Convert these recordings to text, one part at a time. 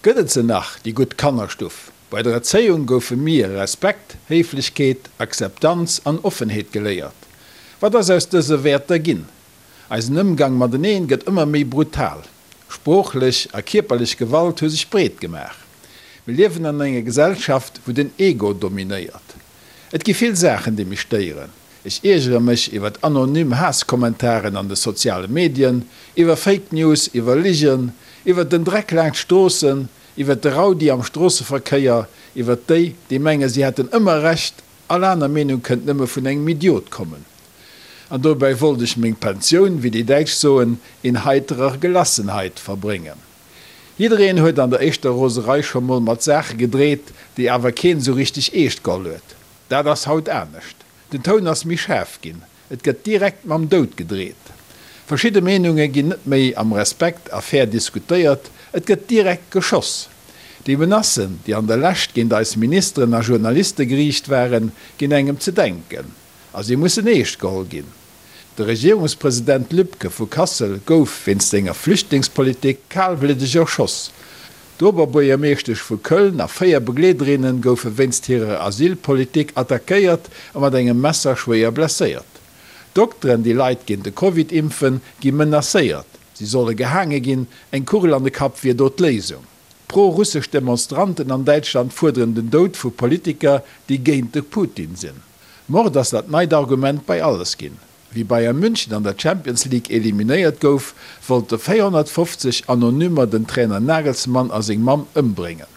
Gëtt et se nach, déi gutt Kannerstuff? Bei der Erzéiung goufe mir Respekt, Héiflechkeet, Akzeptanz an Offenheet geléiert. Wat ass aus dëse Wäerter ginn? Eisen Ëmgang mateneen gëtt ëmmer méi brutal. Sproochlech a kierperlech Gewalt hu sech breet gemaach. Mir liewen an enger Gesellschaft, wou den Ego dominéiert. Et gi vill Saachen, déi mech stéieren. Ech iergere mech iwwer anonym Haasskommentaren an de soziale Medien, iwwer Fake News, iwwer Ligen, iwwer den Dreck laanscht Stroossen, iwwer de Raudi am Stroosseverkéier, iwwer déi, déi menge si hätten ëmmer Recht, all aner Meenung kënnt nëmme vun engem Idiot kommen. An dobäi wollt ech meng Pensioun, wéi déi Däitsch soen, in heiterer Gelassenheit verbréngen. Jiddereen huet an der éischter Roserei scho mol mat Saache gedreet, déi awer keen esou richteg eescht geholl huet. Dat ass haut anescht. Den Toun ass méi schaarf ginn. Et gëtt direkt mam Doud gedreet. Verschidde Meenunge ginn net méi am Respekt a fair diskutéiert, et gëtt direkt geschoss. Déi Menacen, déi an der Lescht géint eis Ministeren a Journaliste geriicht waren, ginn engem ze denken. A si mussen eescht geholl ginn. De Regierungspresident Lübke vu Kassel gouf wéinst senger Flüchtlingspolitik kalbliddeg erschoss. D'Oberbuergermeeschtesch vu Köln a 4 Begleederinne goufe wéinst hirer Asylpolitik attackéiert a mat engem Messer schwéier blesséiert. Dokteren, déi Leit géint de Covid impfen, gi menacéiert, si solle gehaange ginn, eng Kugel an de Kapp wier do d'Léisung. Pro-russesch Demonstranten an Däitschland fuerderen den Doud vu Politiker, déi géint de Putin sinn. Mord ass dat neit Argument bei alles ginn. Wéi Bayern München an der Champions League eliminéiert gouf, wollte 450 Anonymer den Trainer Nagelsmann a seng Mamm ëmbréngen.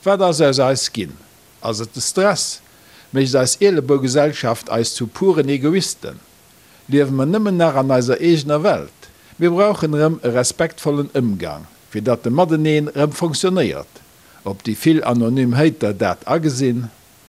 Wat ass aus eis ginn? Ass et de Stress? Mécht eis Ielebougesellschaft eis zu puren Egoisten? Liewe mer nëmmen nach an eiser eegener Welt? Mir brauchen erëm e respektvollen Ëmgang, fir datt de Mateneen erëm fonctionnéiert. Ob déi vill anonym Hater dat agesinn?